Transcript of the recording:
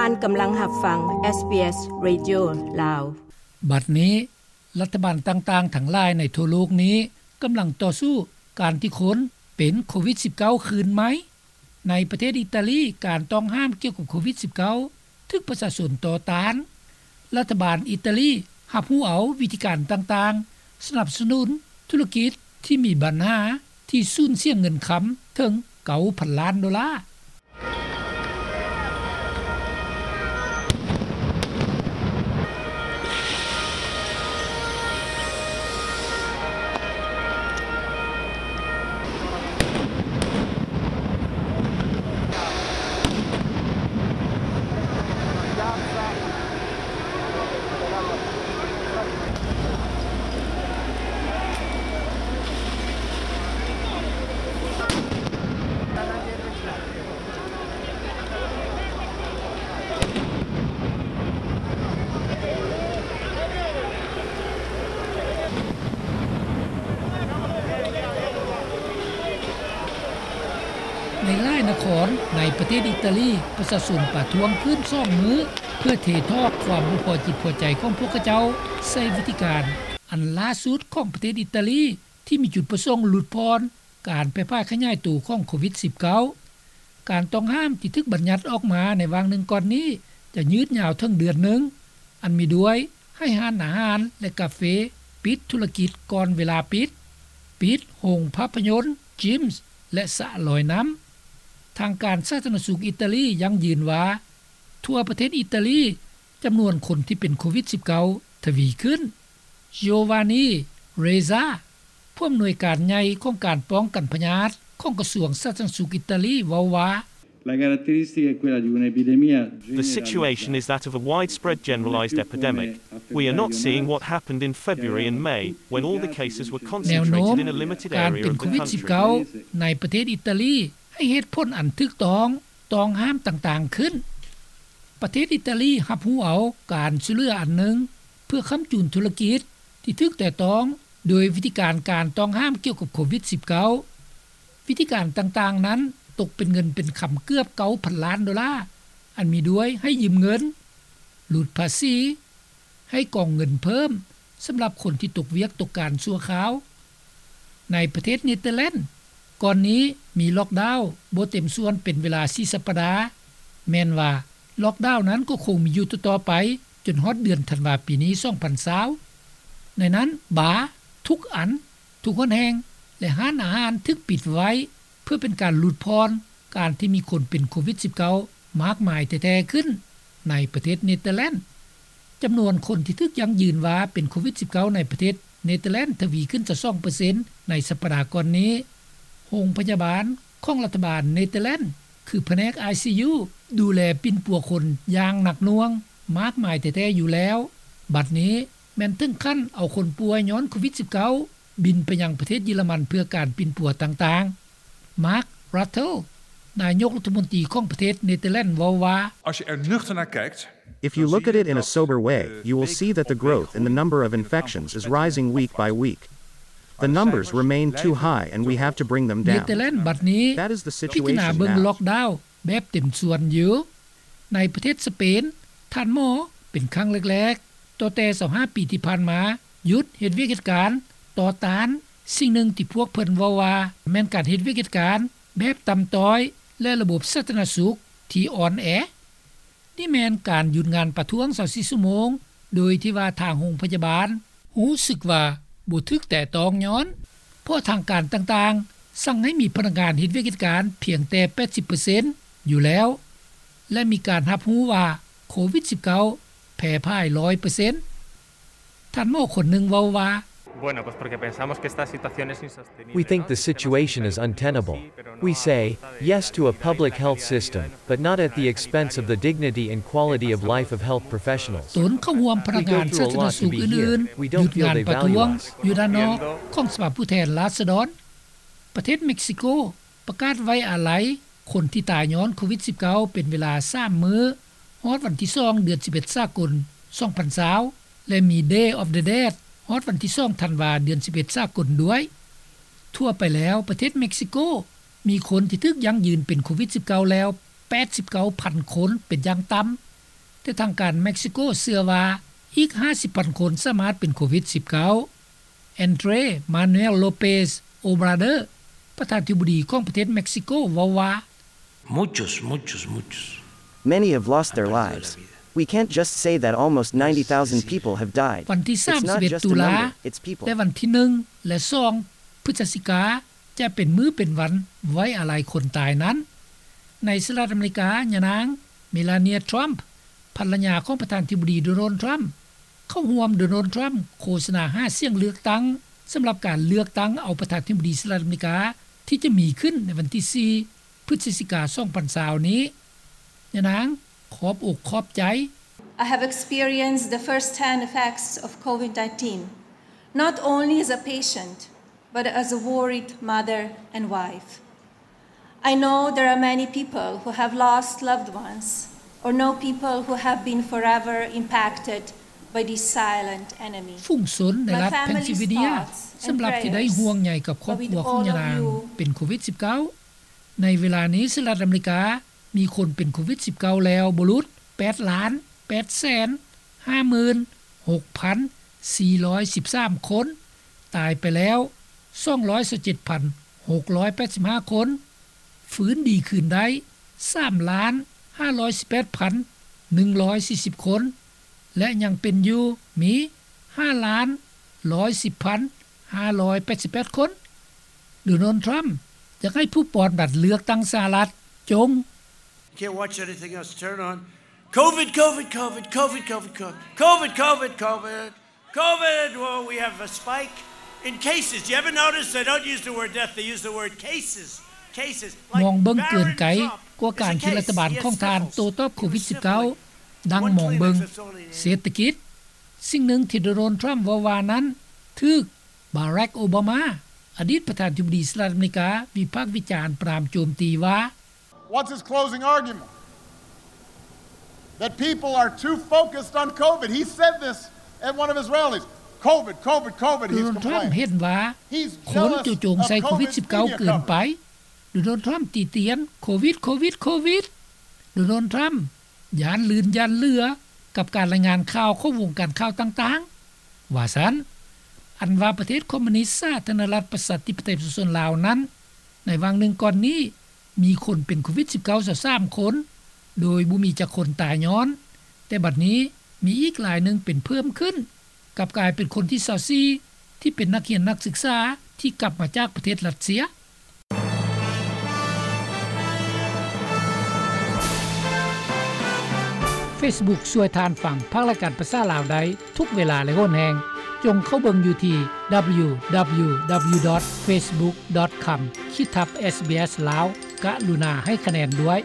ທ່ານກຳລັງຮັບຟັງ SBS Radio ລາວ. ບັດນີ້ ລັດຖະບານຕ່າງໆທັງຫຼາຍໃນທົ່ວໂລກນີ້ກຳລັງຕໍ່ສູ້ການທີ່ຄົນເປັນໂຄວິດສິບເກົ້າຄືນໃໝ່. ໃນປະເທດອີຕາລີ, ການຕ້ອງຫ້າມກ່ຽວກັບໂຄວິດສິບເກົ້າຖືກປະຊາຊົນຕໍ່ຕ້ານ. ລັດຖະບານອີຕາລີຮັບຮູ້ເອົາວິທີການຕ່າງໆ ສະໜັບສະໜູນທຸລະກິດທີ່ມີບັນຫາ ທີ່ສູນເສຍເງິນຄຳເຖິງເກົ້າພັນລ້ານໂດລາ. ໃນຫຼາຍນະຄອນໃນປະເທດອີຕາລີ, ປະຊາຊົນປະທ້ວງຂຶ້ນສອງມື້ ເພື່ອເທຖອກຄວາມບໍ່ພໍຈິດພໍໃຈຂອງພວກເຂົາເຈົ້າໃສ່ວິທີການອັນລ່າສຸດຂອງປະເທດອີຕາລີ ທີ່ມີຈຸດປະສົງຫຼຸດຜ່ອນການແຜ່ພາຍຂະຫຍາຍໂຕຂອງໂຄວິດສິບເກົ້າ. ການຕ້ອງຫ້າມທີ່ຖືກບັນຍັດອອກມາໃນຫວ່າງໜຶ່ງກ່ອນນີ້ ຈະຍືດຍາວເຖິງເດືອນໜຶ່ງ, ອັນມີດ້ວຍໃຫ້ຮ້ານອາຫານ ແລະ ກາເຟປິດທຸລະກິດກ່ອນເວລາປິດ, ປິດໂຮງພາບພະຍົນ, ຈິມ ແລະ ສະລອຍນ້ຳ. ທາງການສາທາລະນະສຸກອີຕາລີຢັ້ງຢືນວ່າ ທົ່ວປະເທດອີຕາລີ ຈຳນວນຄົນທີ່ເປັນໂຄວິດສິບເກົ້າທະວີຂຶ້ນ. Giovanni Reza, ຜູ້ອຳນວຍການໃຫຍ່ຂອງການປ້ອງກັນພະຍາດຂອງກະຊວງສາທາລະນະສຸກອີຕາລີ ເວົ້າວ່າ The situation is that of a widespread generalized epidemic. We are not seeing what happened in February and May, when all the cases were concentrated in a limited area of the country. ແນວໂນ້ມການເປັນໂຄວິດສິບເກົ້າໃນປະເທດອີຕາລີ ໃຫ້ເຫດຜົນອັນຖືກຕ້ອງ ຕ້ອງຫ້າມຕ່າງໆຂຶ້ນ. ປະເທດອີຕາລີຮັບຮູ້ເອົາການຊ່ວຍເຫຼືອອັນໜຶ່ງ ເພື່ອຄ້ຳຈູນທຸລະກິດທີ່ຖືກແຕະຕ້ອງໂດຍວິທີການ ການຕ້ອງຫ້າມກ່ຽວກັບໂຄວິດສິບເກົ້າ. ວິທີການຕ່າງໆນັ້ນຕົກເປັນເງິນເປັນຄຳເກືອບເກົ້າພັນລ້ານໂດລາ, ອັນມີດ້ວຍໃຫ້ຢືມເງິນ, ຫຼຸດພາສີ, ໃຫ້ກອງເງິນເພີ່ມສຳລັບຄົນທີ່ຕົກວຽກຕົກການຊົ່ວຄາວ. ໃນປະເທດເນເທີແລນ ກ່ອນນີ້ມີລ໊ອກດາວບໍ່ເຕັມສ່ວນເປັນເວລາສີ່ສັບປະດາ, ແມ່ນວ່າລ໊ອກດາວນັ້ນກໍຄົງມີຢູ່ຕໍ່ໆໄປຈົນຮອດເດືອນທັນວາປີນີ້ ສອງພັນຊາວ. ໃນນັ້ນ ບາ ທຸກອັນ, ທຸກຫົນແຫ່ງ ແລະ ຮ້ານອາຫານຖືກປິດໄວ້ ເພື່ອເປັນການຫຼຸດຜ່ອນການທີ່ມີຄົນເປັນໂຄວິດສິບເກົ້າມາກມາຍແທ້ໆຂຶ້ນໃນປະເທດເນເທີແລນ. ຈຳນວນຄົນທີ່ຖືກຢັ້ງຢືນວ່າເປັນໂຄວິດສິບເກົ້າໃນປະເທດເນເທີແລນທະວີຂຶ້ນຊາວສອງເປີເຊັນໃນສັບປະດາກ່ອນນີ້. ໂຮງພະຍາບານຂອງລັດຖະບານເນເທີແລນ ຄືພະແນກ ໄອຊີຢູ ດູແລປິ່ນປົວຄົນຢ່າງໜັກໜ່ວງມາກມາຍແທ້ໆຢູ່ແລ້ວ. ບັດນີ້ແມ່ນເຖິງຂັ້ນເອົາຄົນປ່ວຍຍ້ອນໂຄວິດສິບເກົ້າ ບິນໄປຍັງປະເທດເຢຍລະມັນເພື່ອການປິ່ນປົວຕ່າງໆ. ມາກ ຣັດເທິລ ນາຍົກລັດຖະມົນຕີຂອງປະເທດເນເທີແລນ ເວົ້າວ່າ Als je er nuchter naar kijkt, If you look at it in a sober way, you will see that the growth in the number of infections is rising week by week. The numbers remain too high and we have to bring them down. ເນເທີແລນບັດນີ້ That is the situation now. ພິຈາລະນາເບິ່ງລ໊ອກດາວແບບເຕັມສ່ວນຢູ່. ໃນປະເທດສະເປນ ທ່ານໝໍເປັນຄັ້ງແລກໆ ຕໍ່ແຕ່ຊາວຫ້າປີທີ່ຜ່ານມາ ຢຸດເຮັດວຽກເຮັດການ ຕໍ່ຕ້ານສິ່ງໜຶ່ງທີ່ພວກເພິ່ນເວົ້າວ່າ ແມ່ນການເຮັດວຽກເຮັດການແບບຕ່ຳຕ້ອຍ ແລະ ລະບົບສາທາລະນະສຸກທີ່ອ່ອນແອ. ນີ້ແມ່ນການຢຸດງານປະທ້ວງຊາວສີ່ຊົ່ວໂມງ ໂດຍທີ່ວ່າທາງໂຮງພະຍາບານຮູ້ສຶກວ່າບໍ່ຖືກແຕະຕ້ອງຍ້ອນ ເພາະທາງການຕ່າງໆສັ່ງໃຫ້ມີພະນັກງານເຮັດວຽກເຮັດການພຽງແຕ່ແປດສິບເປີເຊັນຢູ່ແລ້ວ ແລະ ມີການຮັບຮູ້ວ່າໂຄວິດສິບເກົ້າແຜ່ພາຍຮ້ອຍເປີເຊັນ. ທ່ານໝໍຄົນໜຶ່ງເວົ້າວ່າ Bueno, pues porque pensamos que esta situación es insostenible. We think the situation is untenable. We say yes to a public health system, but not at the expense of the dignity and quality of life of health professionals. ຕົນເຂົ້າຮ່ວມພະນັກງານສາທາລະນະສຸກອື່ນໆ ຢຸດງານປະທ້ວງຢູ່ດ້ານນອກຂອງສະພາຜູ້ແທນລາຊະດອນ. ປະເທດເມັກຊິໂກປະກາດໄວ້ອາໄລຄົນທີ່ຕາຍຍ້ອນໂຄວິດສິບເກົ້າເປັນເວລາສາມມື້ ຮອດວັນທີສອງ ເດືອນສິບເອັດສາກົນ ສອງພັນຊາວ ແລະ ມີ Day of the Dead ຮອດວັນທີສອງ ທັນວາ ເດືອນສິບເອັດສາກົນດ້ວຍ. ທົ່ວໄປແລ້ວ ປະເທດເມັກຊິໂກມີຄົນທີ່ຖືກຢັ້ງຢືນເປັນໂຄວິດສິບເກົ້າແລ້ວ ແປດສິບເກົ້າພັນຄົນເປັນຢ່າງຕ່ຳ. ແຕ່ທາງການເມັກຊິໂກເຊື່ອວ່າອີກຫ້າສິບພັນຄົນສາມາດເປັນໂຄວິດສິບເກົ້າ. ແອນເດຣ ມານູເອລ ໂລເປສ ໂອບຣາເດີ ປະທານາທິບໍດີຂອງປະເທດເມັກຊິໂກເວົ້າວ່າ Muchos, muchos, muchos. Many have lost their lives. We can't just say that almost ninety thousand people have died. ວັນທີສາມສິບເອັດ It's not just a ຕຸລາ number, it's people. ແລະ ວັນທີໜຶ່ງ ແລະ ສອງ ພຶດສະຈິກາ ຈະເປັນມື້ເປັນວັນໄວ້ອາໄລຄົນຕາຍນັ້ນ. ໃນສະຫະລັດອາເມລິກາ, ຍານາງ ເມລາເນຍ ທຣຳ ພັນລະຍາຂອງປະທານາທິບໍດີ ໂດນັລ ທຣຳ ເຂົ້າຮ່ວມໂດນັລ ທຣຳ ໂຄສະນາຫາສຽງເລືອກຕັ້ງ ສຳລັບການເລືອກຕັ້ງເອົາປະທານາທິບໍດີສະຫະລັດອາເມລິກາ ທີ່ຈະມີຂຶ້ນໃນວັນທີສີ່ ພຶດສະຈິກາ ສອງພັນຊາວນີ້. ຍານາງຂອບອົກຂອບໃຈ. I have experienced the first-hand effects of COVID nineteen, not only as a patient, but as a worried mother and wife. I know there are many people who have lost loved ones or know people who have been forever impacted by this silent enemy. ຝູງຊົນໃນລັດ My family's ເພນຊິລເວເນຍ thoughts and ສຳລັບທີ່ໄດ້ prayers ຫ່ວງໃຍກັບຄອບຄົວຂອງຍານາງ are with all of you. ເປັນໂຄວິດສິບເກົ້າ. ໃນເວລານີ້ ສະຫະລັດອາເມລິກາມີຄົນເປັນໂຄວິດສິບເກົ້າແລ້ວບໍ່ຫຼຸດແປດລ້ານແປດແສນຫ້າໝື່ນຫົກພັນສີ່ຮ້ອຍສິບສາມຄົນ, ຕາຍໄປແລ້ວສອງຮ້ອຍຊາວເຈັດພັນຫົກຮ້ອຍແປດສິບຫ້າຄົນ, ຟື້ນດີຄືນໄດ້ສາມລ້ານຫ້າຮ້ອຍສິບແປດພັນໜຶ່ງຮ້ອຍສີ່ສິບຄົນ ແລະ ຍັງເປັນຢູ່ມີຫ້າລ້ານຮ້ອຍສິບພັນຫ້າຮ້ອຍແປດສິບແປດຄົນ. ໂດນັລ ທຣຳ ຢາກໃຫ້ຜູ້ປ່ອນບັດເລືອກຕັ້ງສະຫະລັດຈົ່ງ You can't watch anything else. Turn on COVID, COVID, COVID, COVID, COVID, COVID, COVID, COVID, COVID. Well, we have a spike in cases. You ever notice they don't use the word death, they use the word cases. Cases. ມອງເບິ່ງເກີນໄກກວ່າການທີ່ລັດຖະບານຂອງທ່ານໂຕ້ຕອບໂຄວິດສິບເກົ້າ ດັ່ງມອງເບິ່ງເສດຖະກິດ. ສິ່ງໜຶ່ງທີ່ໂດນັລ ທຣຳ ເວົ້າວ່ານັ້ນ ຖືກ ບາຣັກ ໂອບາມາ ອະດີດປະທານາທິບໍດີສະຫະລັດອາເມລິກາ ວິພາກວິຈານປາມໂຈມຕີວ່າ What's his closing argument? That people are too focused on COVID. He said this at one of his rallies. COVID, COVID, COVID. ໂດນັລ ທຣຳ ເຫັນວ່າຄົນຈູ່ໂຈມໃສ່ໂຄວິດສິບເກົ້າເກີນໄປ. ໂດນັລ ທຣຳ ຕິຕຽນ ໂຄວິດ ໂຄວິດ ໂຄວິດ. ໂດນັລ ທຣຳ ຢ້ານລື່ນຢ້ານເຫຼືອກັບການລາຍງານຂ່າວຂອງວົງການຂ່າວຕ່າງໆ ວ່າຊັ້ນ. ອັນວ່າປະເທດຄອມມູນິດສາທາລະນະລັດປະຊາທິປະໄຕປະຊາຊົນລາວນັ້ນ ໃນຫວ່າງໜຶ່ງກ່ອນນີ້ ມີຄົນເປັນໂຄວິດສິບເກົ້າຊາວສາມຄົນ ໂດຍບໍ່ມີຈັກຄົນຕາຍຍ້ອນ, ແຕ່ບັດນີ້ມີອີກລາຍໜຶ່ງເປັນເພີ່ມຂຶ້ນ ກັບກາຍເປັນຄົນທີຊາວສີ່ ທີ່ເປັນນັກຮຽນນັກສຶກສາທີ່ກັບມາຈາກປະເທດຣັດເຊຍ. ເຟສບຸກຊ່ວຍທ່ານຟັງພາກລາຍການພາສາລາວໄດ້ທຸກເວລາ ແລະ ໂຫນແຮງ. ຈົ່ງເຂົ້າເບິ່ງຢູ່ທີ່ www.facebook.com/sbs lao. ກະລຸນາໃຫ້ຄະແນນດ້ວຍ.